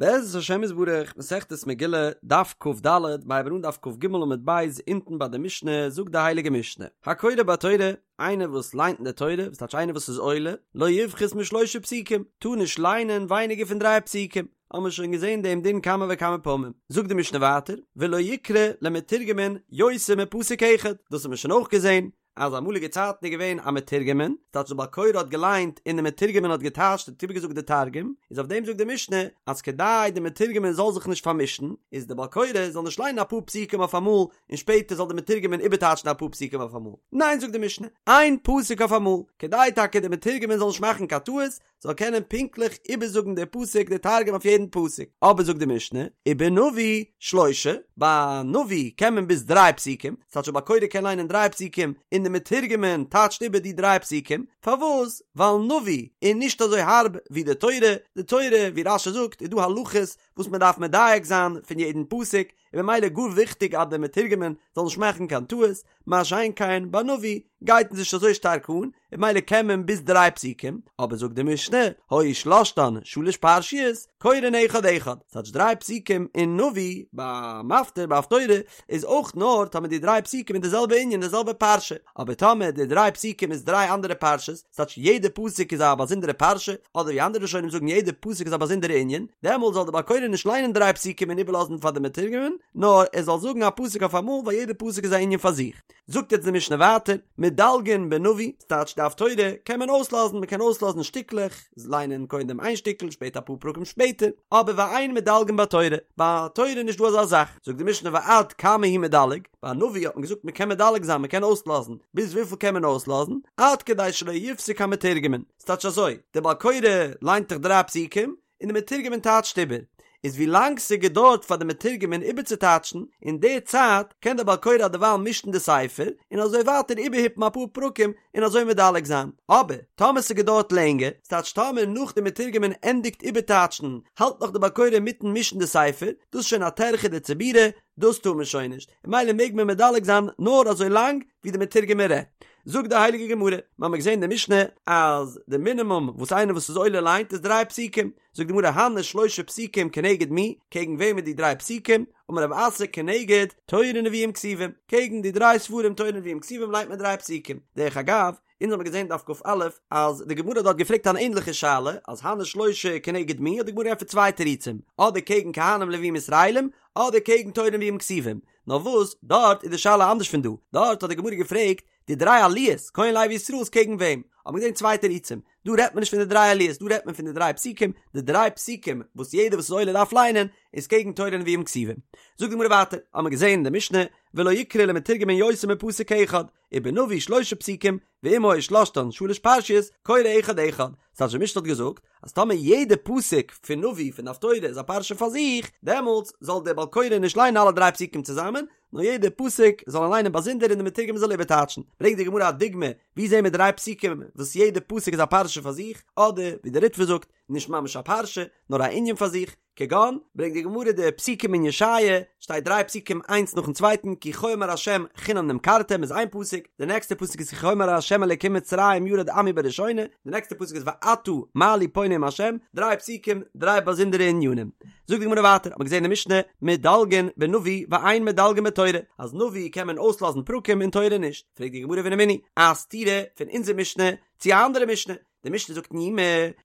בעזרת השם יתברך, מסכת מגילה, דף כ"ד, מ'הייבן אן דף כ"ג עמוד ב', אונטן ביי די משנה, זאגט די הייליגע משנה, הקורא בתורה, איינער וואס ליינט אין די תורה, וואס טייטש איינער וואס איז עולה, לא יפחות משלושה פסוקים, טאר נישט ליינען ווייניגער פון דריי פסוקים, האבן מיר שוין געזען דעם דין כמה וכמה פעמים, זאגט די משנה ווייטער, ולא יקרא למתורגמן יותר מפסוק אחד, דאס האבן מיר שוין אויך געזען, אז אמאליגע צייטן איז געווען א מתורגמן, ס'טייטש די בעל קורא האט געליינט און די מתורגמן האט געטייטשט האט איבערגעזאגט די תרגום, איז אויף דעם זאגט די משנה אז כדי די מתורגמן זאל זיך נישט פארמישן, איז די בעל קורא זאל נישט ליינען אפאר פסוקים אויף אמאל און שפעטער זאל די מתורגמן איבערטייטשן אפאר פסוקים אויף אמאל, ניין זאגט די משנה, איין פסוק אויף אמאל, כדי טאקע די מתורגמן זאל נישט מאכן קיין טעות, זאל קענען פונקטליך איבערזאגן די פסוק די תרגום אויף יעדן פסוק, אבער זאגט די משנה, ובנביא שלושה, ביי נביא קען מען ביז דריי פסוקים, ס'טייטש א בעל קורא קען ליינען דריי פסוקים און די מתורגמן טייטשט איבער די דריי פסוקים, פארוואס? ווייל נביא איז נישט אזוי הארב ווי די תורה, די תורה ווי רש"י זאגט איז דא הלכות וואס מען דארף מדייק זיין פון יעדן פסוק, און ממילא גאר וויכטיג אז דער מתורגמן זאל נישט מאכן קיין טעות, מה שאין כן ביי נביא גייט עס נישט אזוי שטארק אן, און ממילא קען מען ביז דריי פסוקים, אבער זאגט די משנה, היו שלשתן שלש פרשיות, קורין אחד אחד, ס'טייטש דריי פסוקים אין נביא, ביי מפטיר ביי הפטורה, איז אויך נאר טאמער די דריי פסוקים איז די זעלבע ענין די זעלבע פרשה, אבער טאמער די דריי פסוקים איז דריי אנדערע פרשות, ס'טייטש יעדע פסוק איז א באזונדערע פרשה, אדער ווי אנדערע ראשונים זאגן יעדע פסוק איז א באזונדערע ענין, דעמאלט זאל דער בעל קורא נישט ליינען דריי פסוקים און איבערלאזן פאר די מתורגמן, נאר ער זאל זאגן א פסוק אויף אמאל ווייל יעדע פסוק איז א ענין פאר זיך. זאגט יעצט די משנה ווייטער, מדלגין בנביא, ס'טייטש די הפטורה קען מען אויסלאזן, מ'קען אויסלאזן שטיקלעך, ליינען קודם איין שטיקל שפעטער אפאר פרקים שפעטער, אבער ואין מדלגין בתורה, ביי תורה איז נישט דא אזא זאך, זאגט די משנה ועד כמה הוא מדלג, ביי נביא האט מען געזאגט מען קען מדלג זיין מען קען אויסלאזן, ביז וויפיל קען מען אויסלאזן? עד כדי שלא יפסיק המתורגמן, ס'טייטש אזוי, דער בעל קורא ליינט דאך דריי פסוקים, און די מתורגמן טייטשט איבער, איז ווי לאנג ס'געדויערט פאר די מתורגמן איבערצוטייטשן, אין די צייט קען דער בעל קורא דערווייל מישן די ספר, און אזוי ווייטער איבערהיפן אפאר פרקים און אזוי מדלג זיין, אבער טאמער ס'געדויערט לענגער, ס'טייטש טאמער נאך די מתורגמן ענדיגט איבערטייטשן האלט נאך די בעל קורא אינמיטן מישן די ספר, דאס איז שוין א טרחה דציבורא, דאס טאר מען שוין נישט, און ממילא מעג מען מדלג זיין נאר אזוי לאנג ווי די מתורגמן רעדט. זאגט די הייליגע גמרא, מיר האבן געזען אין די משנה אז די מינימום וואס איינער וואס איז עולה ליינט איז דריי פסוקים, זאגט די גמרא הני שלשה פסוקים כנגד מי, קעגן וועם איז די דריי פסוקים, אמר רב אסי כנגד תורה נביאים כתובים, קעגן די דריי ספרים תורה נביאים כתובים ליינט מען דריי פסוקים, דרך אגב, אונז האבן געזען דף כ"א אז די גמרא האט דארט געפרעגט אן ענדליכע שאלה, אז הני שלשה כנגד מי, האט די גמרא געענטפערט צוויי תירוצים, אדער קעגן כהנים לווים ישראלים, אדער קעגן תורה נביאים כתובים. נאר וואס, דארט איז די שאלה אנדערש פון דא, דארט האט די גמרא געפרעגט די דריי עליות, כהן לוי ישראל איז קעגן וועם? האט מען געזען צוויי תירוצים, דא רעדט מען נישט פון די דריי עליות, דא רעדט מען פון די דריי פסוקים, די דריי פסוקים וואס יעדער וואס איז עולה דארף ליינען, איז קעגן תורה נביאים כתובים. זאגט די גמרא ווייטער, האט מען געזען אין די משנה, ולא יקרא למתורגמן יותר מפסוק אחד, ובנביא שלשה פסוקים, ואם היו שלשתן שלש פרשיות, קורא אחד אחד. ס'טייטש די משנה האט געזאגט, אז טאמער יעדע פסוק פון נביא פון די הפטורה איז א פרשה פאר זיך, דעמאלטס זאל דער בעל קורא נישט ליינען אלע דריי פסוקים צוזאמען, נאר יעדע פסוק זאל ער ליינען באזונדער און דער מתורגמן זאל איבערטייטשן. ברענגט די גמרא א דוגמא, ווי זעהן מיר דריי פסוקים וואס יעדע פסוק איז א פרשה פאר זיך, אדער ווי דער ריטב"א זאגט, נישט ממש א פרשה, נאר א ענין פאר זיך, כגון, ברענגט די גמרא די פסוקים אין ישעיה, שטייט דריי פסוקים איינס נאכן צווייטן, כי כה אמר ה' חינם נמכרתם איז איין פסוק, די נעקסטע פסוק איז כי כה אמר ה' אלקים מצרים ירד עמי בראשונה, די נעקסטע פסוק איז ועתה מה לי פה נאם ה', דריי פסוקים, דריי באזונדערע ענינים. זאגט די גמרא ווייטער, האט מען געזען אין משנה, מדלגין בנביא ואין מדלגין בתורה, אז נביא קען מען אויסלאזן פרקים און תורה נישט, פרעגט די גמרא ורמינהי, א סתירה פון אונזער משנה צו א אנדערע משנה, די משנה זאגט אין יומא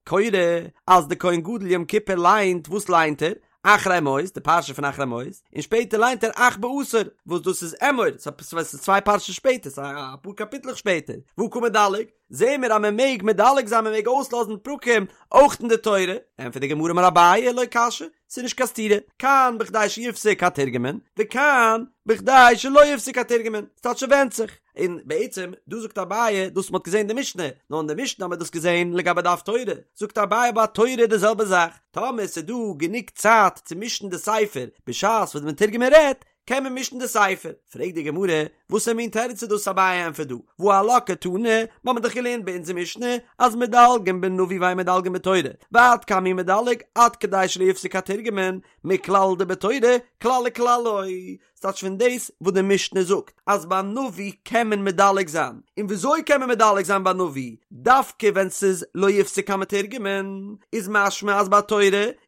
קורא אז די כהן גדול יום כיפור ליינט, וואס ליינט ער? אחרי מות, די פרשה פון אחרי מות, און שפעטער ליינט ער אך בעשור, וואס דאס איז אמור, ס'איז צוויי פרשות שפעטער, ס'איז אפאר קאפיטלעך שפעטער, והא קא מדלג, זעהן מיר אז מען מעג מדלג זיין מען מעג אויסלאזן פרקים אויך אין די תורה, ענטפערט די גמרא אמר אביי לא קשיא, ס'איז נישט קיין סתירה, כאן בכדי שיפסיק התורגמן, וכאן בכדי שלא יפסיק התורגמן, ס'טייטש ס'ווענדט זיך. און בעצם דא זאגט אביי דאס מ'האט געזען אין די משנה, נאר אין די משנה האט מען דאס געזען לגבי די הפטורה, זאגט אביי ביי תורה די זעלבע זאך, טאמער ס'איז דא גענוג צייט צו מישן די ספר בשעת וואס די מתורגמן רעדט, קען מען מישן די ספר. פרעגט די גמרא, וואסער מין תירוץ איז דאס אביי ענטפערט דא, והא עלה קתני, מ'האמיר דאך געלערנט ביי אונזער משנה אז מדלגין בנביא ואין מדלגין בתורה, ועד כמה הוא מדלג עד כדי שלא יפסיק התורגמן, מכלל דבתורה כלל וכלל לא. ס'טייטש פון דאס וואס די משנה זאגט אז ביי נביא קען מען מדלג זיין, און וויאזוי קען מען מדלג זיין ביי נביא דווקא ווען ס'איז לא יפסיק המתורגמן, איז משמע אז ביי תורה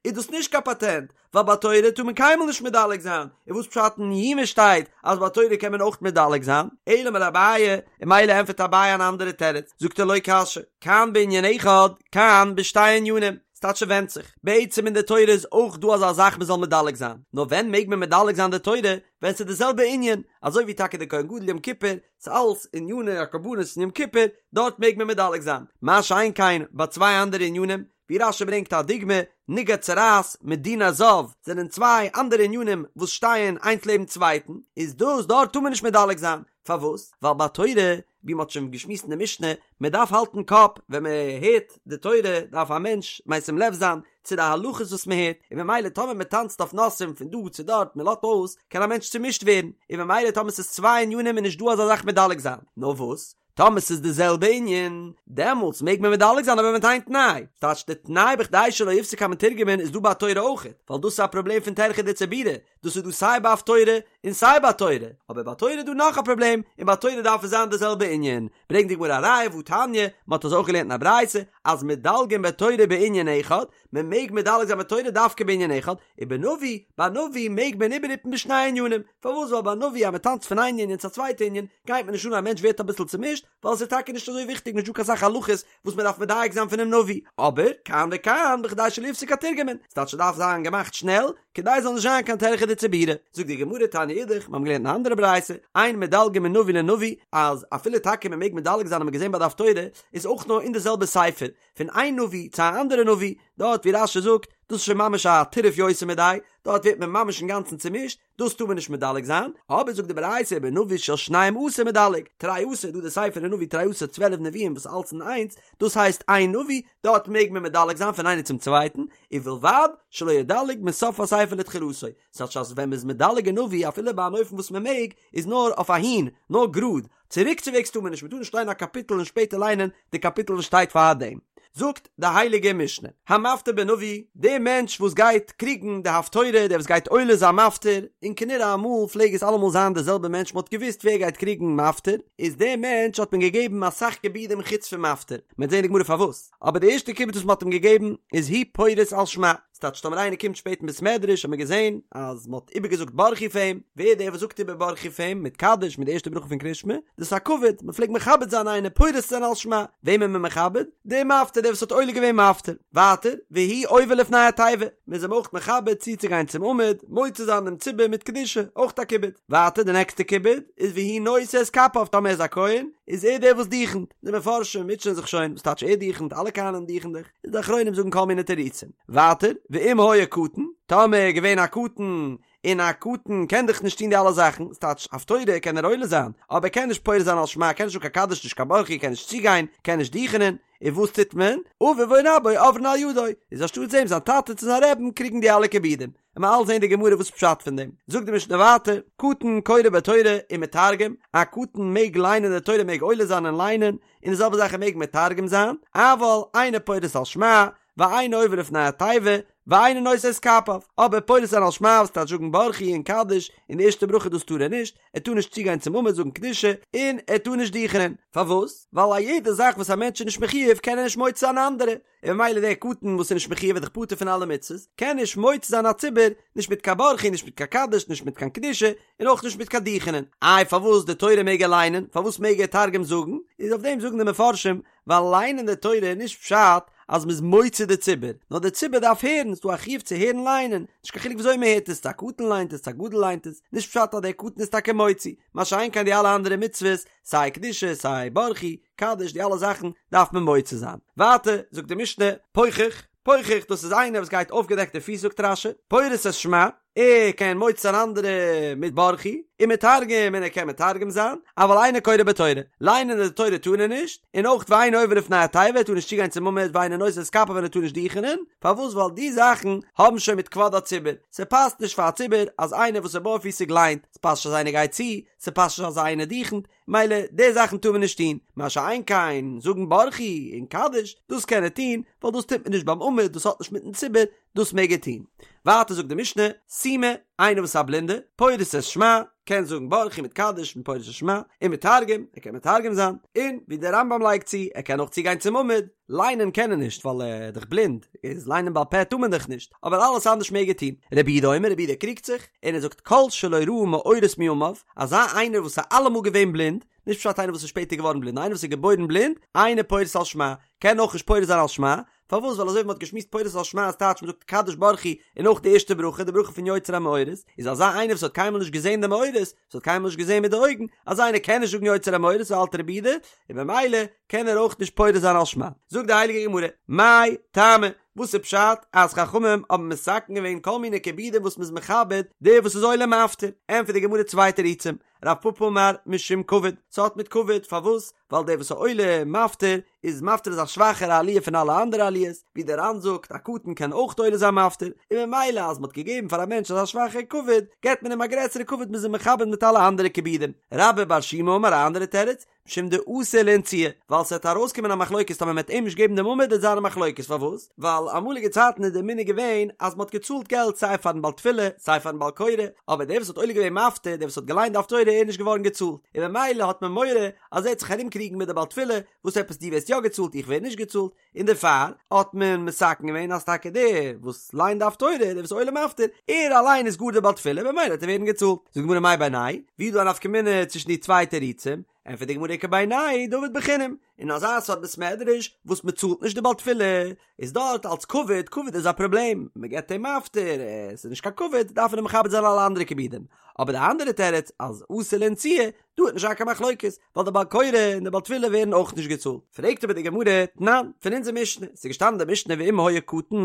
איז דאס נישט קיין פאטענט, ווייל ביי תורה טאר מען קיינמאל נישט מדלג זיין, און וואס פשט אין יומא שטייט אז ביי תורה קען מען אויך מדלג זיין? אלא אמר אביי, און ממילא ענטפערט אביי אן אנדערע תירוץ, זאגט ער לא קשיא, כאן בענין אחד, כאן בשתי ענינים, ס'טייטש ס'ווענדט זיך, בעצם אין די תורה איז אויך דא אזא זאך מ'זאל מדלג זיין, נאר ווען מעג מען מדלג זיין די תורה? ווען ס'איז די זעלבע ענין, אזוי ווי טאקע די כהן גדול יום כיפור, ס'אלס עניני הקרבנות אין יום כיפור, דארט מעג מען מדלג זיין, מה שאין כן ביי צוויי אנדערע ענינים, ווי רש"י ברענגט א דוגמא, נגע צרעת מיט דיני הזב זענען צוויי אנדערע ענינים וואס שטייען איינס לעבן צווייטן, איז דאס דארט טאר מען נישט מדלג זיין, פארוואס? ווייל ביי תורה, ווי מען האט שוין געשמועסט אין די משנה, מען דארף האלטן קאפ ווען מען הערט די תורה דארף א מענטש משים לב זיין צו די הלכות וואס מען הערט, און ממילא טאמער מען טאנצט אויף נושאים פון דא צו דארט מען לאזט אויס, קען א מענטש צומישט ווערן, און ממילא טאמער ס'איז צוויי ענינים איז נישט דא אזא זאך מדלג זיין, נאר וואס? טאמער ס'איז די זעלבע ענין, דעמאלטס מעג מען מדלג זיין אבער מיט איין תנאי, ס'טייטש די תנאי בכדי שלא יפסיק המתורגמן איז דא ביי תורה אויכעט, ווייל דאס איז א פראבלעם פון טירחא דציבורא, דאס איז דא סיי ביי הפטורה און סיי ביי תורה, אבער ביי תורה איז דא נאך א פראבלעם, און ביי תורה דארף עס זיין די זעלבע ענין, ברענגט די גמרא א ראיה והתניא, מען האט אזוי אויך געלערנט אין א ברייתא, אז מדלגין בתורה בענין אחד, מען מעג מדלג זיין בתורה דווקא בענין אחד, ובנביא, ביי נביא מעג מען איבערהיפן בשני ענינים, פארוואס ווייל ביי נביא אז מען טאנצט פון איין ענין צו א צווייטע ענין, גייט מען נישט אן א מענטש ווערט אביסל צומישט, ווייל עס איז טאקע נישט אזוי וויכטיג נישט דא קיין סאך הלכות וואס מען דארף מדייק זיין פונעם נביא, אבער כאן וכאן בכדי שלא יפסיק התורגמן, ס'טייטש ס'דארף זיין געמאכט שנעל, כדי ס'זאל נישט זיין קיין טרחא דציבורא. זאגט די גמרא תניא אידך, מיר האבן געלערנט אין א אנדערע ברייתא, אין מדלגין מנביא לנביא, אז אפילו טאקע מען מעג מדלג זיין האט מען געזען ביי די הפטורה, איז אויך נאר אין די זעלבע ספר, פון איין נביא צו א אנדערע נביא, דארט ווי רש"י זאגט, דאס איז שוין ממש א טירוף יותר מדאי, דארט ווערט מען ממש אינגאנצן צומישט, דאס טאר מען נישט מדלג זיין, אבער זאגט די ברייתא ובנביא של שנים עשר מדלג, תרי עשר, דא די ספר אין נביא תרי עשר 12 נביאים וואס אלץ אין איינס, דאס הייסט איין נביא, דארט מעג מען מדלג זיין פון איינער צום צווייטן, ובלבד שלא ידלג מסוף הספר לתחילתו, ס'טייטש אז ווען מ'איז מדלג אין נביא אפילו ביי אן אופן וואס מ'מעג, איז נאר אויף אהין, נאר גראד, צוריקצווועגס טאר מען נישט, מען טאר נישט ליינען א קאפיטל און שפעטער ליינען די קאפיטל וואס שטייט פאר דעם. זאגט די הייליגע משנה, המפטיר בנביא, דער מענטש וואס גייט קריגן די הפטורה, דער וואס גייט עולה זיין מפטיר, און כנראה אמאל פלעג עס אלעמאל זיין דער זעלבער מענטש, מען האט געוואוסט ווער גייט קריגן מפטיר, איז דער מענטש האט מען געגעבן אסאך כיבודים חוץ פון מפטיר, מען וועט זען אין די גמרא פארוואס, אבער די ערשטע כיבוד וואס מען האט אים געגעבן איז הוא פורס על שמע, ס'טייטש טאמער איינער קומט שפעט אין בית מדרש האט מען געזען אז מ'האט איבערגעזאגט ברכו פאר אים, ווער דער וואס זאגט איבער ברכו פאר אים מיט קדיש מיט די ערשטע ברכה פון קריאת שמע, דאס איז א כבוד, מ'פלעגט מכבד זיין איינער פורס זיין על שמע, וועם איז מען מכבד? דער מפטיר דער וואס האט עולה געווען מפטיר. ווייטער, והוא עובר לפני התיבה, מ'איז אים אויך מכבד צוצוגיין צום עמוד, מוציא זיין דעם ציבור מיט קדושה, אויך א כיבוד. ווייטער די נעקסטע כיבוד איז והוא נושא את כפיו טאמער ער איז א כהן איז ער דער וואס דוכנ'ט, די מפרשים מוטשען זיך שוין וואס טייטש ער דוכנ'ט אלע כהנים דוכנ'ען דאך. איז די אחרונים זאגן כל מיני תירוצים. ווייטער, ואם היה קטן, טאמער איז געווען א קטן, און א קטן קען דאך נישט טון די אלע זאכן, ס'טייטש הפטורה קען ער עולה זיין, אבער ער קען נישט פורס זיין על שמע, קען נישט זאגן קיין קדיש נישט קיין ברכו, קען נישט צוגיין, קען נישט דוכענען, און וואס טוט מען? אביו או רבו עוברין על ידו, איז אנשטאטס אים זיין טאטע צו זיין רבי'ן קריגן די אלע כיבודים. און מ'עט זען די גמרא וואס פשט פון דעם. זאגט די משנה ווייטער, קטן קורא בתורה ומתרגם, א קטן מעג ליינען די תורה מעג עולה זיין און ליינען, און די זעלבע זאך ער מעג מתרגם זיין, אבל אינו פורס על שמע, ואינו עובר לפני התיבה, ואינו נושא את כפיו, אבער פורס זיין על שמע וואס טייטש זאגן ברכו און קדיש און די ערשטע ברכה דאס טאר ער נישט, ער טאר נישט צוגיין צום עמוד זאגן קדושה, און ער טאר נישט דוכענען. פארוואס? ווייל א יעדע זאך וואס א מענטש איז נישט מחיוב קען ער נישט מוציא זיין אנדערע, און ממילא דער קטן וואס איז נישט מחיוב איז דאך פטור פון אלע מצוות, קען נישט מוציא זיין א ציבור, נישט מיט קיין ברכו, נישט מיט קיין קדיש, נישט מיט קיין קדושה, און אויך נישט מיט קיין דוכענען. איי פארוואס די תורה מעג ער ליינען? פארוואס מעג ער תרגום זאגן? איז אויף דעם זאגן די מפרשים, ווייל ליינען די תורה איז נישט פשט אז מ'איז מוציא די ציבור, נאר די ציבור דארף הערן, ס'דא א חיוב צו הערן ליינען, נישט קיין חילוק וויאזוי מ'הערט עס, צו א קטן ליינט עס, צו א גדול ליינט עס, נישט פשט אז דער קטן איז טאקע מוציא, מה שאין כן די אלע אנדערע מצוות, סיי קדושה, סיי ברכו, קדיש, די אלע זאכן דארף מען מוציא זיין. ווייטער זאגט די משנה, פוחח, פוחח דאס איז איינער וואס גייט אויפגעדעקטע פיס זאגט רש"י, פורס את שמע, ער קען מוציא זיין אנדערע מיט ברכו, ומתרגם און ער קען מתרגם זיין, אבל אינו קורא בתורה, ליינען די תורה טאר ער נישט, און אויך ואינו עובר לפני התיבה ער טאר נישט צוגיין צום עמוד ואינו נושא את כפיו און ער טאר נישט דוכענען, פארוואס ווייל די זאכן האבן שוין מיט כבוד הציבור, ס'פאסט נישט פאר א ציבור אז איינער וואס איז בארפיסיג ליינט, ס'פאסט נישט אז איינער גייט צו, ס'פאסט נישט אז איינער דוכנט, מילא די זאכן טאר מען נישט טון, מה שאין כן זאגן ברכו און קדיש, דאס קען ער טון, ווייל דאס טוט מען נישט ביים עמוד, דאס האט נישט מיטן ציבור, דאס מעג ער טון. ווייטער זאגט די משנה, סומא, איינער וואס איז א בלינדער, פורס את שמע, קען זאגן ברכו מיט קדיש און פורס את שמע, ומתרגם, ער קען מתרגם זיין, און ווי דער רמב"ם לייגט צו, ער קען אויך צוגיין צום עמוד, ליינען קען ער נישט ווייל ער איז דאך בלינד, איז ליינען בעל פה טאר מען דאך נישט, אבער אלעס אנדערש מעג ער טון. רבי יהודה אומר, רבי יהודה קריגט זיך, און ער זאגט כל שלא ראה מאורות מימיו, אזא איינער וואס איז אלעמאל געווען בלינד, נישט פשט איינער וואס איז שפעטער געווארן בלינד, נאר איינער וואס איז געבוירן בלינד, אינו פורס על שמע, קען אויך נישט פורס זיין על שמע, פארוואס ווייל אזוי ווי מען האט געשמועסט פורס על שמע איז טייטש מען זאגט קדיש ברכו און אויך די ערשטע ברכה די ברכה פון יוצר המאורות, איז אזא איינער וואס האט קיינמאל נישט געזען די מאורות, וואס האט קיינמאל נישט געזען מיט די אויגן, אזא איינער קען נישט זאגן יוצר המאורות אזוי האלט רבי יהודה, און במילא קען ער אויך נישט פורס זיין על שמע. זאגט די הייליגע גמרא, מאי טעמא, וואס איז פשט אז חכמים האבן מתקן געווען כל מיני כיבודים וואס מ'איז מכבד דער וואס איז עולה מפטיר? ענטפערט די גמרא צוויי תירוצים, רב פפא אמר משום כבוד, ס'האט מיט כבוד, פארוואס? ווייל דער וואס איז עולה מפטיר איז מפטיר איז א שוואכערע עליה פון אלע אנדערע עליות, ווי דער ר"ן זאגט א קטן קען אויך עולה זיין מפטיר, און ממילא אז מ'האט געגעבן פאר א מענטש אזא שוואכער כבוד, געבט מען אים א גרעסערע כבוד מ'איז אים מכבד מיט אלע אנדערע כיבודים. רבה בר שימי אמר א אנדערע תירוץ, משום דאתי לאנצויי, ווייל ס'וועט ארויסקומען א מחלוקת טאמער מ'וועט אים נישט געבן דעם עמוד וועט זיין א מחלוקת פארוואס? ווייל אמאליגע צייטן איז דער מנהג געווען אז מ'האט געצאלט געלט סיי פארן בעל תפילה סיי פארן בעל קורא, אבער דער וואס האט עולה געווען מפטיר, דער וואס האט געליינט די הפטורה איז נישט געווארן געצאלט, און ממילא האט מען מורא אז ער וועט זיך ארומקריגן מיט די בעל תפילה, וואס עפעס דו ווערסט יא געצאלט איך ווער נישט געצאלט, און דערפאר האט מען מתקן געווען אז טאקע דער וואס ליינט די הפטורה, דער וואס איז עולה מפטיר, ער אליין איז גאר דער בעל תפילה, במילא וועט ער ווערן געצאלט. זאגט די גמרא מאי בינייהו ווי איז דא א נפקא מינה צווישן די צוויי תירוצים? ענטפערט די גמרא איכא בינייהו דעביד בחינם, אין אזא סארט בית מדרש וואס מען צאלט נישט די בעל תפילה, איז דארט אלס כבוד, כבוד איז א פראבלעם, מען געבט אים מפטיר, עס איז נישט קיין כבוד, דארף מען אים מכבד זיין אלע אנדערע כיבודים. אבער די אנדערע תירוץ אז אתי לאנצויי, דא וועט נישט זיין קיין מחלוקת, ווייל די בעל קורא און די בעל תפילה ווערן אויך נישט געצאלט. פרעגט אבער די גמרא, תנן, פון אונזער משנה, ס'איז געשטאנעין די משנה ואם היה קטן,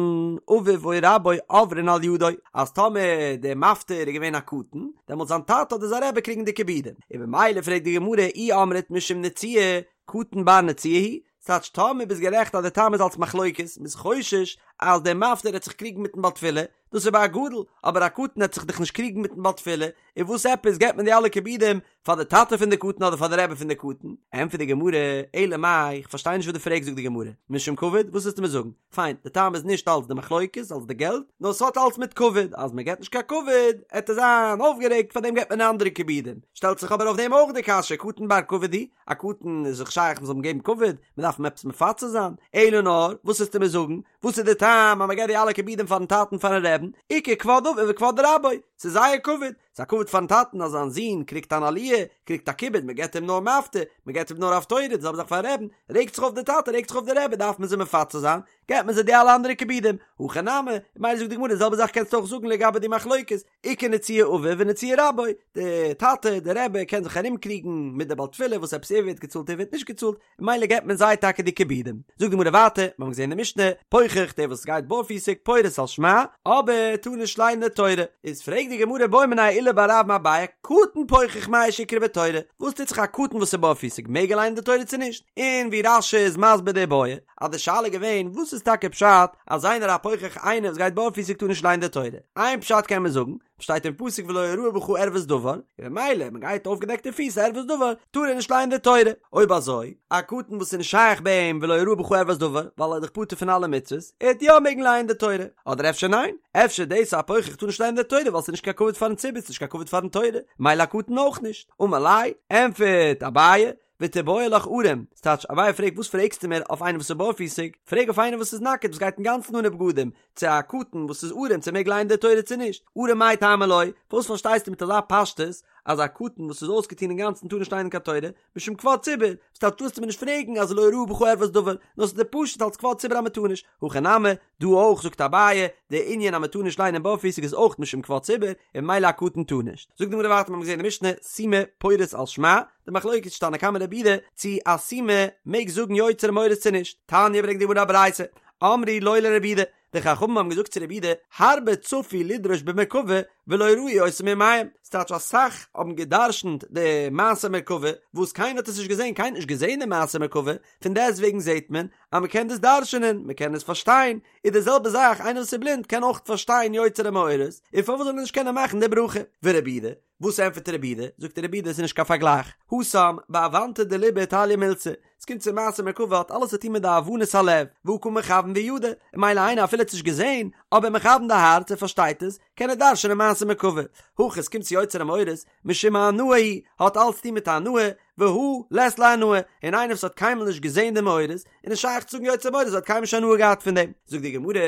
אביו או רבו עוברין על ידו, אז טאמער דער מפטיר איז געווען א קטן, דעמאלט זיין טאטע אדער זיין רבי קריגן די כיבודים, און במילא פרעגט די גמרא אי אמרת משום נצויי, קטן בר נצויי הוא, ס'טייטש טאמער ביסט גערעכט אז די טעם איז אלס מחלוקת, מ'איז חושש אז דער מפטיר העט זיך קריגן מיטן בעל תפילה, דאס איז ביי א גדול, אבער א קטן העט זיך דאך נישט קריגן מיטן בעל תפילה, און וואס עפעס געבט מען די אלע כיבודים פאר די טאטע פון די קטן אדער פאר די רבי פון די קטן? ענטפערט די גמרא, אלא מאי, איך פארשטיי נישט וואס דו פרעגסט זאגט די גמרא, משום כבוד, וואס ווילסטו מיר זאגן? פיין, די טעם איז נישט אלס די מחלוקת, אלס די געלט, נאר ס'האט אלס מיט כבוד, אז מ'געבט נישט קיין כבוד, עט ער זיין אויפגערעגט, פארדעם געבט מען אנדערע כיבודים. שטעלט זיך אבער אויף דעם אויך די קשיא, קטן בר כבוד הוא, א קטן איז זיך שייך מ'זאל אים געבן כבוד, מ'דארף אים עפעס מפצה זיין, אלא נאר, וואס ווילסטו מיר זאגן, וואס איז די טעם אז מ'געבט די אלע כיבודים פארן טאטן פארן רעבן, איכא כבוד אביו וכבוד רבו, ס'איז זייער כבוד, ס'איז א כבוד פארן טאטן אז זיין זון קריגט אן עליה, קריגט א כיבוד, מ'געבט אים נאר מפטיר, מ'געבט אים נאר הפטורה, די זעלבע זאך פארן רעבן, רעגט זיך אויף די טאטע, רעגט זיך אויף די רבי, דארף מען זיי מפצה זיין, געבט מען זיי די אלע אנדערע כיבודים, הכא נמי, ממילא זאגט די גמרא די זעלבע זאך קענסטו אויך זאגן לגבי די מחלוקת, איכא נצויי אביו ונצויי רבו, די טאטע, די רבי קען זיך ארום קריגן מיט די בעל תפילה וואס עפעס ער ווערט געצאלט ער ווערט נישט געצאלט, ממילא געבט מען זיי טאקע די כיבודים. זאגט די גמרא ווייטער, מיר האבן געזען אין די משנה, פוחח דער וואס גייט בארפיסיג פורס על שמע, אבער טאר נישט ליינען די תורה. איז פרעגט די גמרא בעא מיניה עולא בר רב מאביי, קטן פוחח מהו שיקרא בתורה, וואס טוט זיך א קטן וואס איז בארפיסיג מעג ער ליינען די תורה צו נישט? און ווי רש"י איז מסביר די בעיא, אז די שאלה איז געווען וואס איז טאקע פשט אז איינער א פוחח איינער וואס גייט בארפיסיג טאר נישט ליינען די תורה? איין פשט קען מען זאגן, שטייט אין פסוק ולא יראה בך ערות דבר, און ממילא מען גייט אויפגעדעקטע פיס ערות דבר, טאר ער נישט לייענען די תורה. אויב אזוי, א קטן וואס איז נישט שייך ביי אים ולא יראה בך ערות דבר, ווייל ער איז דאך פטור פון אלע מצוות, ער וועט יא מעגן לייענען די תורה. אדער אפשר ניין? אפשר דאס א פוחח טאר נישט לייענען די תורה ווייל ס'איז נישט קיין כבוד פארן ציבור, ס'איז נישט קיין כבוד פארן תורה, מילא א קטן אויך נישט. אמר ליה, ענטפערט אביי, ותיבעי לך ערום, ס'טייטש, אביי פרעגט וואס פרעגסטו מיר אויף איינעם וואס איז בארפיסיג, פרעג אויף איינעם וואס איז נאקעט וואס גייט אינגאנצן אנע בגדים, צו א קטן וואס איז ערום צו ער מעג לייענען די תורה צו נישט, ערום מאי טעמא לא, פארוואס פארשטייסטו מיט אזא פשטות אז א קטן וואס איז אויסגעטון אינגאנצן טאר נישט לייענען קיין תורה, משום כבוד ציבור, ס'טייטש טארסטו מיר נישט פרעגן אז לא יראה בך ערות דבר, נאר ס'איז דיר פשוט אלס כבוד ציבור אז מ'טאר נישט, הכא נמי, דא אויך זאגט אביי, די ענין אז מ'טאר נישט לייענען בארפיסיג איז אויך משום כבוד ציבור, און ממילא א קטן טאר נישט. זאגט די גמרא ווייטער מיר האבן געזען אין די משנה, סומא פורס על שמע, די מחלוקת איז תנא קמא רבי יהודה צו א סומא מעג זאגן יוצר המאורות צו נישט, תניא ברענגט די גמרא א ברייתא, אמרו לו לרבי יהודה, די חכמים האבן געזאגט צו רבי יהודה, הרבה צפו לדרוש במרכבה ולא ראו אותה מימיהם, ס'טייטש אסאך האבן גע'דרש'נט די מעשה מרכבה, וואס קיינער האט עס נישט געזען, קיינער האט נישט געזען די מעשה מרכבה, פון דעסטוועגן זעט מען אז מ'קען דאס דרש'נען, מ'קען עס פארשטיין, איז די זעלבע זאך איינער וואס איז בלינד קען אויך פארשטיין יוצר המאורות, און פארוואס זאל ער נישט קענען מאכן די ברכה? ורבי יהודה, וואס ענטפערט רבי יהודה? זאגט רבי יהודה עס איז נישט קיין פארגלייך, התם בהבנתא דליבא תליא מילתא, עס קומט צו מעשה מרכבה האט אלעס צו טון מיט די הבנת הלב, והא קא מכוון וידע, און ממילא איינער אפילו האט עס נישט געזען, אבער מכוון די הארץ ער פארשטייט עס, קען ער דרש'נען מעשה מרכבה, הכא עס קומט צו יוצר המאורות, משום הנאה הוא, האט אלץ צו טון מיט הנאה, והא לית ליה הנאה, און איינער וואס האט קיינמאל נישט געזען די מאורות, איז נישט שייך צו זאגן יוצר מאורות, האט קיינמאל נישט הנאה געהאט פון דעם. זאגט די גמרא,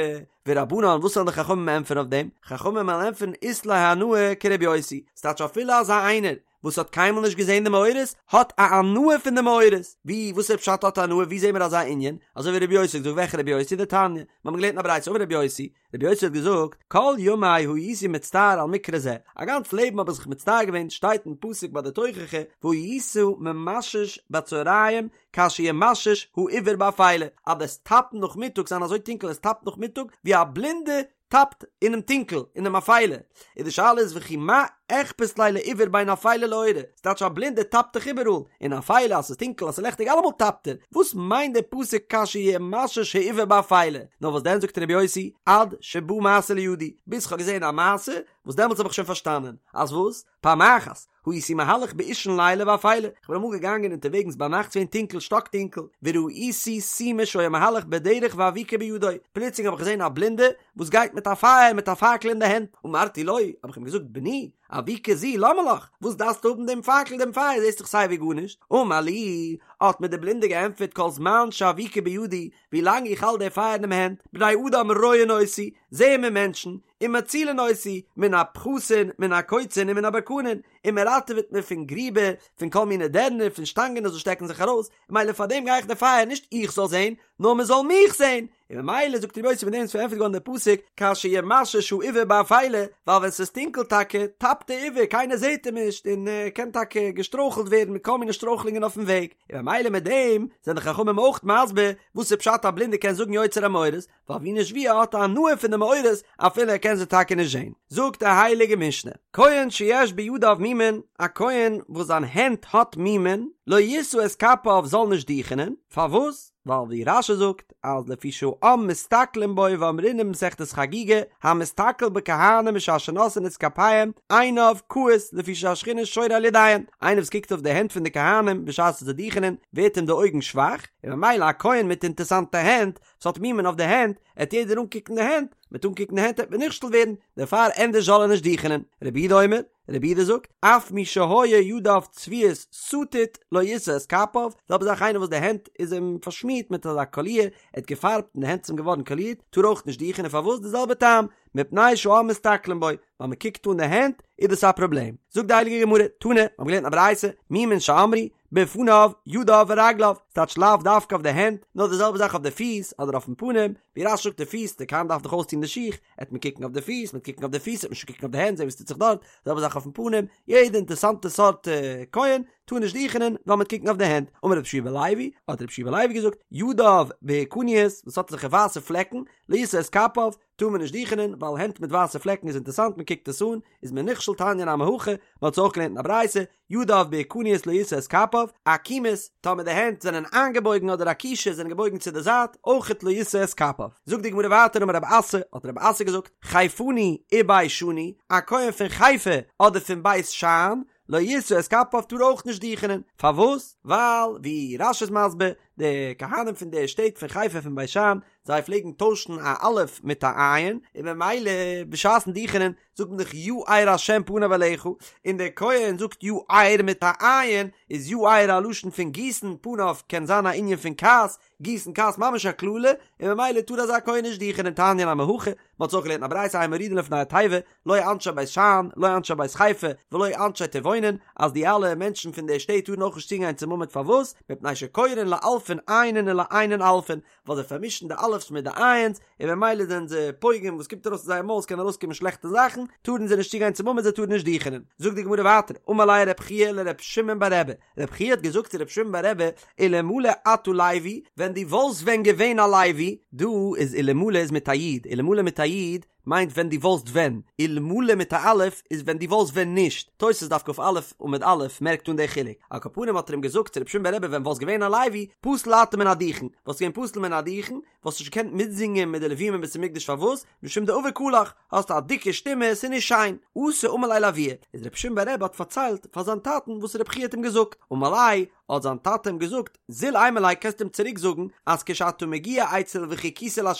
ורבנן, וואס וועלן די חכמים ענטפערן אויף דעם? חכמים וועלן ענטפערן אית ליה הנאה כרבי יוסי, ס'טייטש אפילו אזא איינער וואס האט קיינמאל נישט געזען די מאורות, האט א הנאה פון די מאורות. ווי, וואס איז פשט האט הנאה, ווי זעהן מיר אזא ענין? אזוי ווי רבי יוסי האט געזאגט, וועלכע רבי יוסי? דתניא, מיר האבן געלערנט אין א ברייתא, אמר רבי יוסי, רבי יוסי האט געזאגט, כל ימי הייתי מצטער על מקרא זה, א גאנץ לעבן האב איך זיך מצטער געווען, שטייט אין פסוק ביי די תוכחה, והיית ממשש בצהריים כאשר ימשש העיוור באפילה, אז דו'סט טאפן נאכמיטאג זיין אזוי טונקל עס טאפט נאכמיטאג ווי א בלינדע טאפט אינעם טונקל, אינעם אפילה, און די שאלה איז וכי מה אכפת ליה לעיוור בין אפילה לאורה, ס'טייטש א בלינדער טאפט דאך איבעראל, אין אפילה אז ס'איז טונקל אז ס'איז לעכטיג אלעמאל טאפט ער, וואס מיינט דער פסוק כאשר ימשש העיוור באפילה? נאר וואס דען זאגט רבי יוסי, עד שבא מעשה לידי, ביז כ'האב געזען א מעשה, וואס דעמאלטס האב איך שוין פארשטאנען, אז וואס? פעם אחת, הייתי מהלך באישון לילה ואפילה, כ'בין אמאל געגאנגען אונטערוועגנס ביינאכט ס'געווען טונקל שטאק טונקל, וראיתי סומא שהיה מהלך בדרך ואבוקה בידו, פלוצלינג האב איך געזען א בלינדע וואס גייט מיט א פייער מיט א פאקל אין די הענט, אמרתי לו, האב איך אים געזאגט, בני, אבוקה זו למה לך, וואס דארפסטו האבן דעם פאקל דעם פייער זעסט דאך סייווי גארנישט, אמר לי, האט מיר דער בלינדער געענטפערט כל זמן שאבוקה בידי, ווי לאנג איך האלט די פייער אינעם הענט, בני אדם רואין אותי, זעען מיר מענטשן, ומצילין אותי, מן הפחתין, מן הקוצין ומן הברקנין, און מען ראטעוועט מיר פון גריבער, פון כל מיני דערנער, פון שטאנגען וואס שטעקן זיך ארויס, ממילא פאר דעם גיי איך די פייער, נישט איך זאל זען, נאר מען זאל מיך זען, און ממילא זאגט רבי יוסי מיט דעם איז פארענטפערט געווארן דער פסוק, כאשר ימשש העיוור באפילה, ווייל ווען ס'איז טונקל טאקע, טאפט דער עיוור, קיינער זעט אים נישט, און ער קען טאקע געשטרויכלט ווערן מיט כל מיני שטרויכלונגען אויפן וועג, און ממילא מיט דעם זענען די חכמים אויך מסביר וואס איז פשט א בלינדער קען זאגן יוצר המאורות, ווייל ווי נישט ווי ער האט א הנאה פון די מאורות אפילו ער קען זיי טאקע נישט זען. זאגט די הייליגע משנה, כהן שיש בידיו מומין, א כהן וואס זיין הענט האט מומין, לא ישא את כפיו זאל נישט דוכענען, פארוואס? ווייל ווי רש"י זאגט אז לפי שהעם מסתכלין בו ואמרינן במסכת חגיגה, המסתכל בכהנים בשעה שנושאין את כפיהם, עיניו כהות לפי שהשכינה שורה על ידיהן, איינער וואס קוקט אויף די הענט פון די כהנים בשעת זיי דוכענען ווערט אים די אויגן שוואך, און ממילא א כהן מיט אינטערסאנטע הענט ס'האט מומין אויף די הענט, עט יעדער אנקוקן די הענט, מיט אנקוקן די הענט עט מען נכשל ווערן, דערפאר ענדערש זאל ער נישט דוכענען. רבי יהודה אומר, רבי יהודה זאגט, אף מי שהיו ידיו צבועות סטיט לא ישא את כפיו, זעלבע זאך איינער וואס די הענט איז אים פארשמירט מיט אזא קאליר, ער האט געפארבט און די הענט איז אים געווארן קאלירט, טאר אויך נישט דוכענען, פארוואס? די זעלבע טעם, מפני שהעם מסתכלין בו, ווייל מען קוקט אן די הענט, איז דאס א פראבלעם. זאגט די הייליגע גמרא, תנא, מיר האבן געלערנט א ברייתא, מומין שאמרו, בפניו, ידיו ורגליו, ס'טייטש לאו דווקא אויף די הענט, נאר די זעלבע זאך אויף די פיס, אדער אויפן פנים, ווי רש"י זאגט די פיס, די כהן דארף דאך אויסטון די שיך, עט מען קוקן אויף די פיס, מ'עט קוקן אויף די פיס, עט מען שוין קוקן אויף די הענט, זען וואס טוט זיך דארט, די זעלבע זאך אויפן פנים, יעדע אינטערסאנטע סארט כהן, טאר נישט דוכענען, ווייל מ'עט קוקן אויף די הענט. אמר רבי יהושע בן לוי, האט רבי יהושע בן לוי געזאגט, ידיו בוהקניות, וואס האט אזעלכע ווייסע פלעקן, לא ישא את כפיו, טאר מען נישט דוכענען, ווייל הענט מיט ווייסע פלעקן איז אינטערסאנט, מען קוקט עס אן, איז מען נכשל תניא נמי הכי, מען האט עס אויך געלערנט אין א ברייתא, ידיו בוהקניות לא ישא את כפיו, עקומות, טאמער די הענט זענען איינגעבויגן אדער עקושות זענען געבויגן צו די זייט, אויכעט לא ישא את כפיו. זאגט די גמרא ווייטער אמר רב אסי, האט רב אסי געזאגט, חיפני ובישני, א כהן פון חיפה אדער פון בית שאן, לא ישא את כפיו טאר אויך נישט דוכענען, פארוואס? ווייל ווי רש"י איז מסביר, די כהנים פון די שטעט פון חיפה פון בית שאן, זיי פלעגן טוישן א אלף מיט א עין, און ממילא בשעת'ן דוכענען זאגט מען דאך יאר השם פניו אליך, און דער כהן זאגט יאר מיט א עין, איז יאר א לשון פון גיסן, פניו קען זיין א ענין פון כעס, גיסן כעס ממש א קללה, און ממילא טאר אזא כהן נישט דוכענען תניא נמי הכי, מען האט עס אויך געלערנט אין א ברייתא אין מורידין לפני התיבה, לא אנשי בית שאן, לא אנשי בית חיפה, ולא אנשי טבעונין, אז די אלע מענטשן פון די שטעט טארן אויך נישט צוגיין צום עמוד פארוואס? מפני שקורין לאלפין עיינין ולעיינין אלפין, ווייל זיי פארמישן די א' אלף'ס מיט די עין'ס, און במילא זענען זיי פוגם וואס קומט ארויס פון זייער מויל ס'קען ארויסקומען שלעכטע זאכן, טארן זיי נישט צוגיין צום עמוד זיי טארן נישט דוכענען. זאגט די גמרא ווייטער, אמר ליה רב חייא לר' שמעון בר רבי, רב חייא האט געזאגט צו ר' שמעון בר רבי, אלמלא אתה לוי, ווען דו וואלסט ווען געווען א לוי, דא איז אלמלא איז מיט א יוד, אלמלא מיט א יוד מיינט ווען דו וואלסט ווען, אלמלא מיט א אלף איז ווען דו וואלסט ווען נישט, תוס' דף כ"א עמוד א' מערקט אן די חילוק, על כל פנים האט ער אים געזאגט צו ר' שמעון בר רבי ווען וואלסט געווען א לוי, פסול אתה מן הדוכן, וואלסט געווען פסול מן הדוכן, וואלסט נישט געקענט מיטזינגען מיט די לווים אין בית המקדש פארוואס? משום דעביק קלך, האסט א דיקע שטימע, ס'איז נישט שיין. אתא אמר ליה לאבוה, איז רבי שמעון בר רבי האט פארציילט פאר זיין טאטן וואס רבי חייא האט אים געזאגט, אמר ליה, האט זיין טאטע אים געזאגט, זיל אימא ליה קענסט אים צוריק זאגן אז כשאתה מגיע אצל וחיכיתי לה'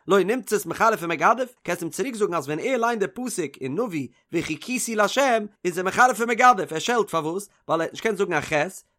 לא נמצאת מחרף ומגדף, קענסט אים צוריק זאגן אז ווען ער ליינט די פסוק אין נביא וחיכיתי לה' איז ער מחרף ומגדף, ער שעלט פארוואס? ווייל ער האט נישט געקענט זאגן א ח',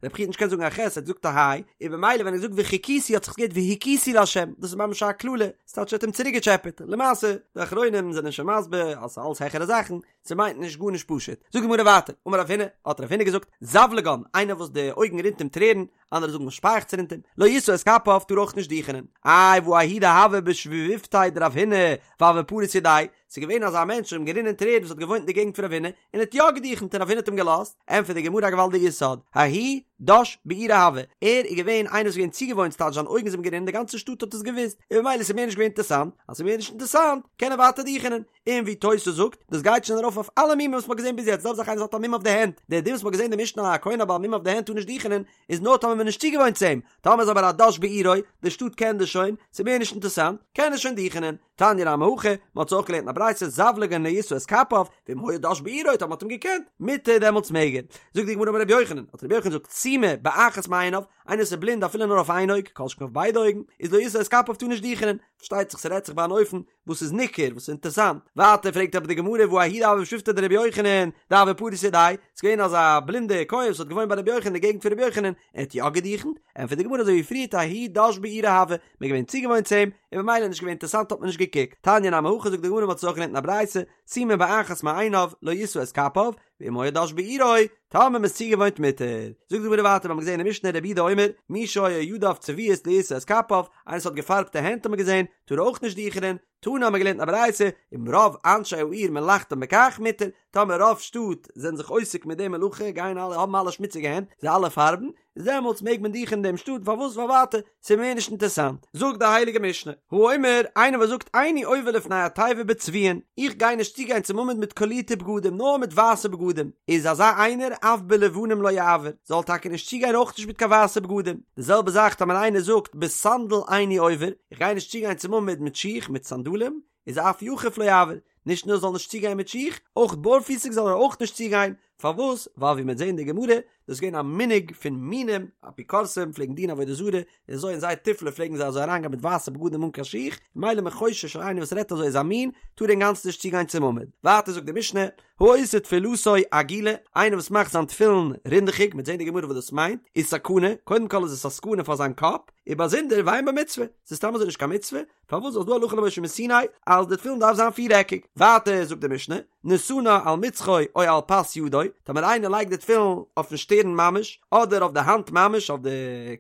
רבי חייא האט נישט געקענט זאגן א ח', ער האט געזאגט א ה', און במילא ווען ער זאגט וחיכיתי האט זיך עס געהערט והכיתי לה', דאס איז ממש א קללה, ס'טייטש ער האט אים צוריקגעטשעפעט, למעשה, די אחרונים זענען שוין מסביר אז ס'איז אלס העכערע זאכן, ס'מיינט נישט גארנישט פשוט. זאגט די גמרא ווייטער, אמר רב הונא, האט רב הונא געזאגט, זבלגן, איינער וואס די אויגן רינט אים טרערן, אנדערע זאגן וואס שפייעכץ רינט אים, לא ישא את כפיו, טאר אויך נישט דוכענען. איי והא ההוא דהוה בשבבותיה דרב הונא, והוה פריס ידיה, ס'איז געווען אזא מענטש וואס אים גערינען טרערן וואס האט געוואוינט אין די געגנט פון רב הונא, און האט יא געדוכנט און רב הונא האט אים געלאזט, ענטפערט די גמרא א געוואלדיגע יסוד, ההוא דש בעירו הוה, ער איז געווען איינער וואס איז געווען צוגעוואוינט ס'טייטש זיין אויגן זענען גערינען די גאנצע שטאט האט עס געוואוסט, און במילא איז מער נישט געווען אינטערסאנט, אז ס'איז מער נישט אינטערסאנט קען ער ווייטער דוכענען, און ווי תוס' זאגט, דאס גייט שוין ארויף אויף אלע מומים וואס מ'האט געזען ביז יעצט, זעלבע זאך איינער וואס האט א מום אויף די הענט, דער דין וואס מ'האט געזען אין די משנה א כהן א בעל מום אויף די הענט טאר נישט דוכענען, איז נאר טאמער מ'איז נישט צוגעוואוינט צו אים, טאמער איז אבער א דש בעירו, די שטאט קען דאס שוין, ס'איז מער נישט אינטערסאנט, קען ער שוין דוכענען. תניא נמי הכי, מ'האט עס אויך געלערנט אין א ברייתא, זבלגן לא ישא את כפיו, ואם היה דש בעירו, טאמער מ'האט אים געקענט, מותר דעמאלטס מעג ער. זאגט די גמרא אמר רבי יוחנן, האט רבי יוחנן געזאגט, סומא באחת מעיניו, איינער וואס איז בלינד אפילו נאר אויף איין אויג, כל שכן אויף ביידע אויגן, איז לא ישא את כפיו טאר נישט דוכענען, פארשטייט זיך ס'רעדט זיך ביי אן אופן וואס איז ניכר, וואס איז אינטערסאנט. ווייטער פרעגט אבער די גמרא והא ההוא דהוה בשבבותיה דרבי יוחנן, דהוה פריס ידיה, ס'איז געווען אזא בלינדע כהן וואס האט געוואוינט ביי רבי יוחנן אין די געגנט פון רבי יוחנן, ער האט יא געדוכנט? ענטפערט די גמרא אזוי ווי פריערט ההוא דש בעירו הוה, מ'איז געווען צוגעוואוינט צו אים, און במילא נישט געווען אינטערסאנט האט מען נישט געקוקט. תניא נמי הכי זאגט די גמרא מ'האט עס אויך געלערנט אין א ברייתא, סומא באחת מעיניו, לא ישא את כפיו, ואם היה דש בעירו, טאמער מ'איז צוגעוואוינט מותר. זאגט די גמרא ווייטער מ'האט געזען אין משנה רבי יהודה אומר, מי שהיו ידיו צבועות לא ישא את כפיו, איינער וואס האט געפארבטע הענט האט מען געזען, טאר אויך נישט דוכענען, תנא האט מען געלערנט אין א ברייתא, אם רוב אנשי העיר מלאכתם בכך מותר, טאמער רוב שטאט זענען זיך עוסק מיט די מלאכה, גייען אלע האבן אלע שמוציגע הענט, זיי אלע פארבן, איז דעמאלטס מעג מען דוכענען אין דעם שטאט, פארוואס ווייל ווייטער ס'איז מער נישט אינטערסאנט. זאגט די הייליגע משנה, האומר, איינער וואס זאגט איני עובר לפני התיבה בצבועין, איך גיי נישט צוגיין צום עמוד מיט קאלירטע בגדים, נאר מיט ווייסע בגדים, איז אזא איינער אף בלבנים לא יעבור, זאל טאקע נישט צוגיין אויך נישט מיט קיין ווייסע בגדים. די זעלבע זאך טאמער איינער זאגט בסנדל איני עובר, איך גיי נישט צוגיין צום עמוד מיט שיך, מיט סנדלים, איז אף יחף לא יעבור, נישט נאר זאל נישט צוגיין מיט שיך, אויך בארפיסיג זאל ער אויך נישט צוגיין, פארוואס? ווייל ווי מ'וועט זען אין די גמרא, דאס איז געווען א מנהג פון מינים, אפיקורסים פלעגן דינען עבודה זרה, און אזוי אין זייער תיפלה פלעגן זיי אזוי אריינגיין מיט ווייסע בגדים אן קיין שיך, ממילא מ'איז חושש אז איינער וואס רעדט אזוי איז א מין, טאר אינגאנצן נישט צוגיין צום עמוד. ווייטער זאגט די משנה, העושה תפילתו עגולה, איינער וואס מאכט זיין תפילין רינדעכיג, מ'וועט זען אין די גמרא וואס דאס מיינט, איז סכנה, קודם כל איז עס א סכנה פאר זיין קאפ, און באזונדער ואין בה מצוה, ס'איז סתם אזוי נישט קיין מצוה, פארוואס ווייל ס'דא הלכה למשה מסיני אז די תפילין דארף זיין פירעקיג? ווייטער זאגט די משנה, נתנה על מצחו או על פס ידו, טאמער איינער לייגט די תפילין אויפן שטערן ממש, אדער אויף די האנט ממש אויף די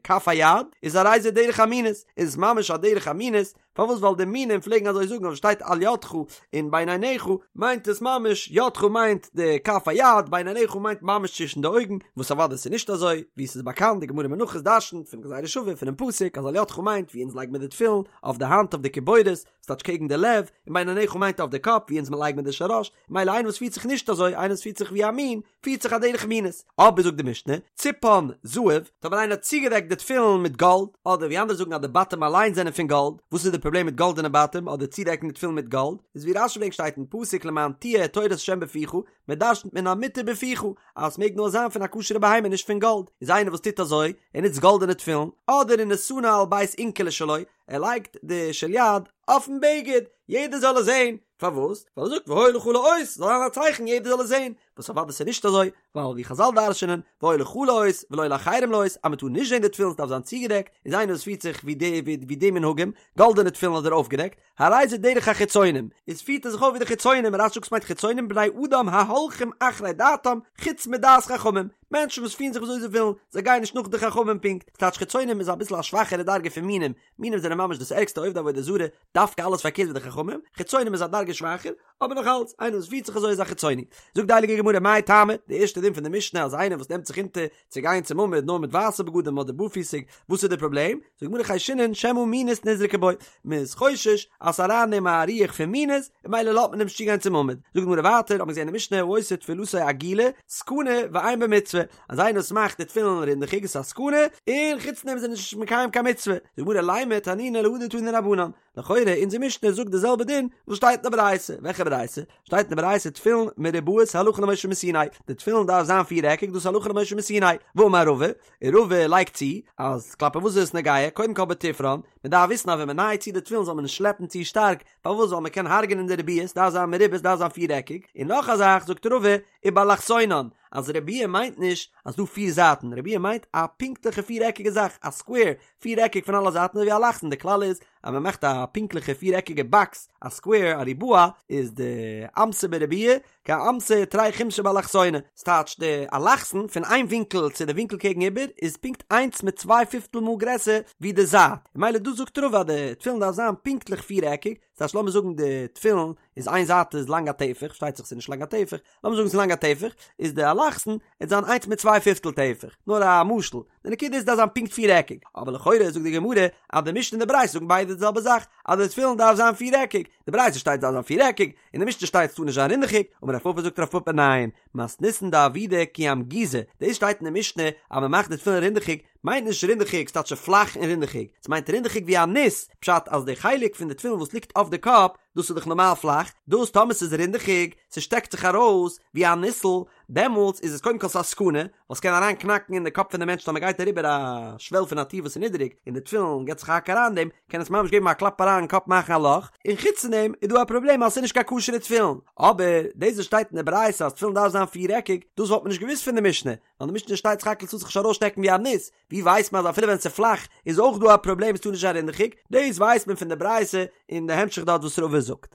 כף היד, איז הרי זה דרך המינות, איז עס ממש א דרך המינות, פארוואס ווייל די מינים פלעגן אזוי זאגן אויב שטייט על ידך און בין עיניך מיינט עס ממש ידך מיינט די כף היד בין עיניך מיינט ממש צווישן די אויגן, וואס אוודאי ס'איז נישט אזוי, ווי ס'איז באקאנט די גמרא מנחות דרשנ'ט פון גזירה שווה פונעם פסוק אז על ידך מיינט ווי אונז לייגן מיר די תפילין אויף די האנט אויף די קיבורת, ס'טייטש קעגן די לב, און בין עיניך מיינט אויף די קאפ ווי אונז מ'לייגן מיר די של ראש, מילא איינער וואס פירט זיך נישט אזוי, איינער וואס פירט זיך ווי א מין, פירט זיך א דרך מינות. אבער זאגט די משנה, ציפן זהב, טאמער איינער האט צוגעדעקט די תפילין מיט גאלד, אדער ווי אנדערע זאגן אז די בתים אליין זענען פון גאלד, וואס איז די פראבלעם מיט גאלדענע בתים אדער צודעקן די תפילין מיט גאלד, איז ווי רש"י ברענגט שטייט אין פסוק למען תהיה תורת ה' בפיך, מען דרשנ'ט מן המותר בפיך, אז עס מעג נאר זיין פון א כשר'ע בהמה נישט פון גאלד, איז איינער וואס טוט אזוי, ער נוצט גאלדענע תפילין, אדער ונתנה על בית אונקלי שלו, ער לייגט די של יד אויפן בגד, יעדער זאל עס זען, פארוואס? ווייל ער זאגט והיה לך לאות, זאל זיין א צייכן יעדער זאל עס זען, וואס אוודאי ס'איז נישט אזוי, ווייל ווי חזל דרש'נען, והיה לך לאות ולא לאחרים לאות, אז מ'טאר נישט זען די תפילין ס'דארף זיין צוגעדעקט, איז איינער וואס פירט זיך ווי די ווי די מנהגים, גאלדענע תפילין אדער אויפגעדעקט, הרי זה דרך החיצונים, איז פירט ער זיך אויף ווי די חיצונים, רש"י זאגט ס'מיינט חיצונים בני אדם ההולכים אחרי דעתם חוץ מדעת חכמים, מענטשן וואס פירן זיך וויאזוי זיי ווילן, זיי גייען נישט נאך די חכמים פונקט, ס'טייטש חיצונים איז אביסל א שוואכערע דרגה פון מינים, מינים זענען ממש דאס ערגסטע עובדי עבודה זרה, דווקא אלעס פארקערט ווי די חכמים, חיצונים איז א דרגה שוואכער, אבער נאך אלץ, איינער וואס פירט זיך אזוי איז א חיצוני. זאגט די הייליגע גמרא מאי טעמא, די ערשטע דין פון די משנה אז איינער וואס נעמט זיך אונטער צו גיין צום עמוד נאר מיט ווייסע בגדים אדער בארפיסיג, וואס איז די פראבלעם? זאגט די גמרא חיישינן שמא מינות נזרקה בו, מען איז חושש אז ס'איז אריין אין אים א רוח פון מינות, און ממילא לאזט מען אים נישט צוגיין צום עמוד. זאגט די גמרא ווייטער, האט מען געזען אין די משנה העושה תפילתו עגולה, סכנה ואין בה מצוה, אז איינער וואס מאכט די תפילין רינדעכיג איז א סכנה, און חוץ דעם איז ער נישט מקיים קיין מצוה. זאגט די גמרא לימא תנינא להא דתנו רבנן, לכאורה אונזער משנה זאגט די זעלבע דין וואס שטייט אין די ברייתא, וועלכע ברייתא? שטייט אין די ברייתא תפילין מרובעות הלכה למשה מסיני, די תפילין דארף זיין פיר עקיג דאס הלכה למשה מסיני, ואמר רבא, און רבא לייגט צו אז כלפי וואס איז עס נוגע, קודם כל בתפרן, מען דארף וויסן אז ווען מען נייעט צו די תפילין זאל מען נישט שלעפן צו שטארק, פארוואס ווייל מען קען הרג'נען די רביע, ס'דארף זיין מרובע ס'דארף זיין פיר עקיג, און נאך א זאך זאגט רבא, ובאלכסונן, אז רביע מיינט נישט אז דא פיר זייטן, רביע מיינט א פונקטליכע פיר עקיגע זאך, א סקווער, פיר עקיג פון אלע זייטן אזוי ווי אלכסון, די כלל איז אז מען מאכט א פונקטליכע פיר עקיגע באקס, א סקווער, א ריבוע, איז די אמתא בריבועא, כאמתא תרי חומשי באלכסונא, ס'טייטש די אלכסון פון איין ווינקל צו די ווינקל קעגן איבער איז פונקט איינס מיט צוויי פיפטל מאל גרעסער ווי די זייט, ממילא דא זאגט רבא אז די תפילין דארף זיין פונקטליך פיר עקיג, ס'טייטש לאמיר זאגן די תפילין איז איין זייט איז לאנג א טפח, פארשטייט זיך ס'איז נישט לאנג א טפח, לאמיר זאגן ס'איז לאנג א טפח, איז די אלכסון וועט זיין איינס מיט צוויי פיפטל טפח, נאר א משל, די נקודה איז דארף זיין פונקט פיר עקיג, אבער לכאורה זאגט די גמרא אז די משנה און די ברייתא זאגן ביידע די זעלבע זאך, אז די תפילין דארף זיין פיר עקיג, די ברייתא שטייט דארף זיין פיר עקיג, און די משנה שטייט ס'טאר נישט זיין רינדעכיג, אמר רב פפא זאגט רב פפא ניין, מתניתין דעבידא כי אמגוזא, דאס שטייט אין די משנה אז מ'מאכט די תפילין רינדעכיג, מיינט נישט רינדעכיג ס'טייטש פלאך און רינדעכיג, ס'מיינט רינדעכיג ווי א ניס, פשט אז די חלק פון די תפילין וואס ליגט אויף די קאפ, דאס איז דאך נארמאל פלאך, דאס טאמער ס'איז רינדעכיג, ס'שטעקט זיך ארויס ווי א ניסל, דעמאלטס איז עס קודם כל ס'א סכנה, ווייל ס'קען אריין קנאקן אין די קאפ פון די מענטש טאמער גייט אריבער א שוועל פון א טיר וואס איז נידעריג און די תפילין געט זיך א האק אריין אין דעם, קען עס ממש געבן א קלאפ אריין אין קאפ מאכן א לאך, און חוץ פון דעם איז דא א פראבלעם אז ס'איז נישט קיין כשר'ע תפילין, אבער דאס וואס שטייט אין די ברייתא אז תפילין דארף זיין פיר-עקיג, דאס וואלט מען נישט געוואוסט פון די משנה, ווייל די משנה שטייט סך הכל ס'טאר זיך נישט ארויסשטעקן ווי א ניס, ווי ווייסט מען אז אפילו ווען ס'איז פלאך איז אויך דא א פראבלעם עס טאר נישט זיין רינדעכיג, דאס ווייסט מען פון די ברייתא און די המשך דארט וואס רבא זאגט.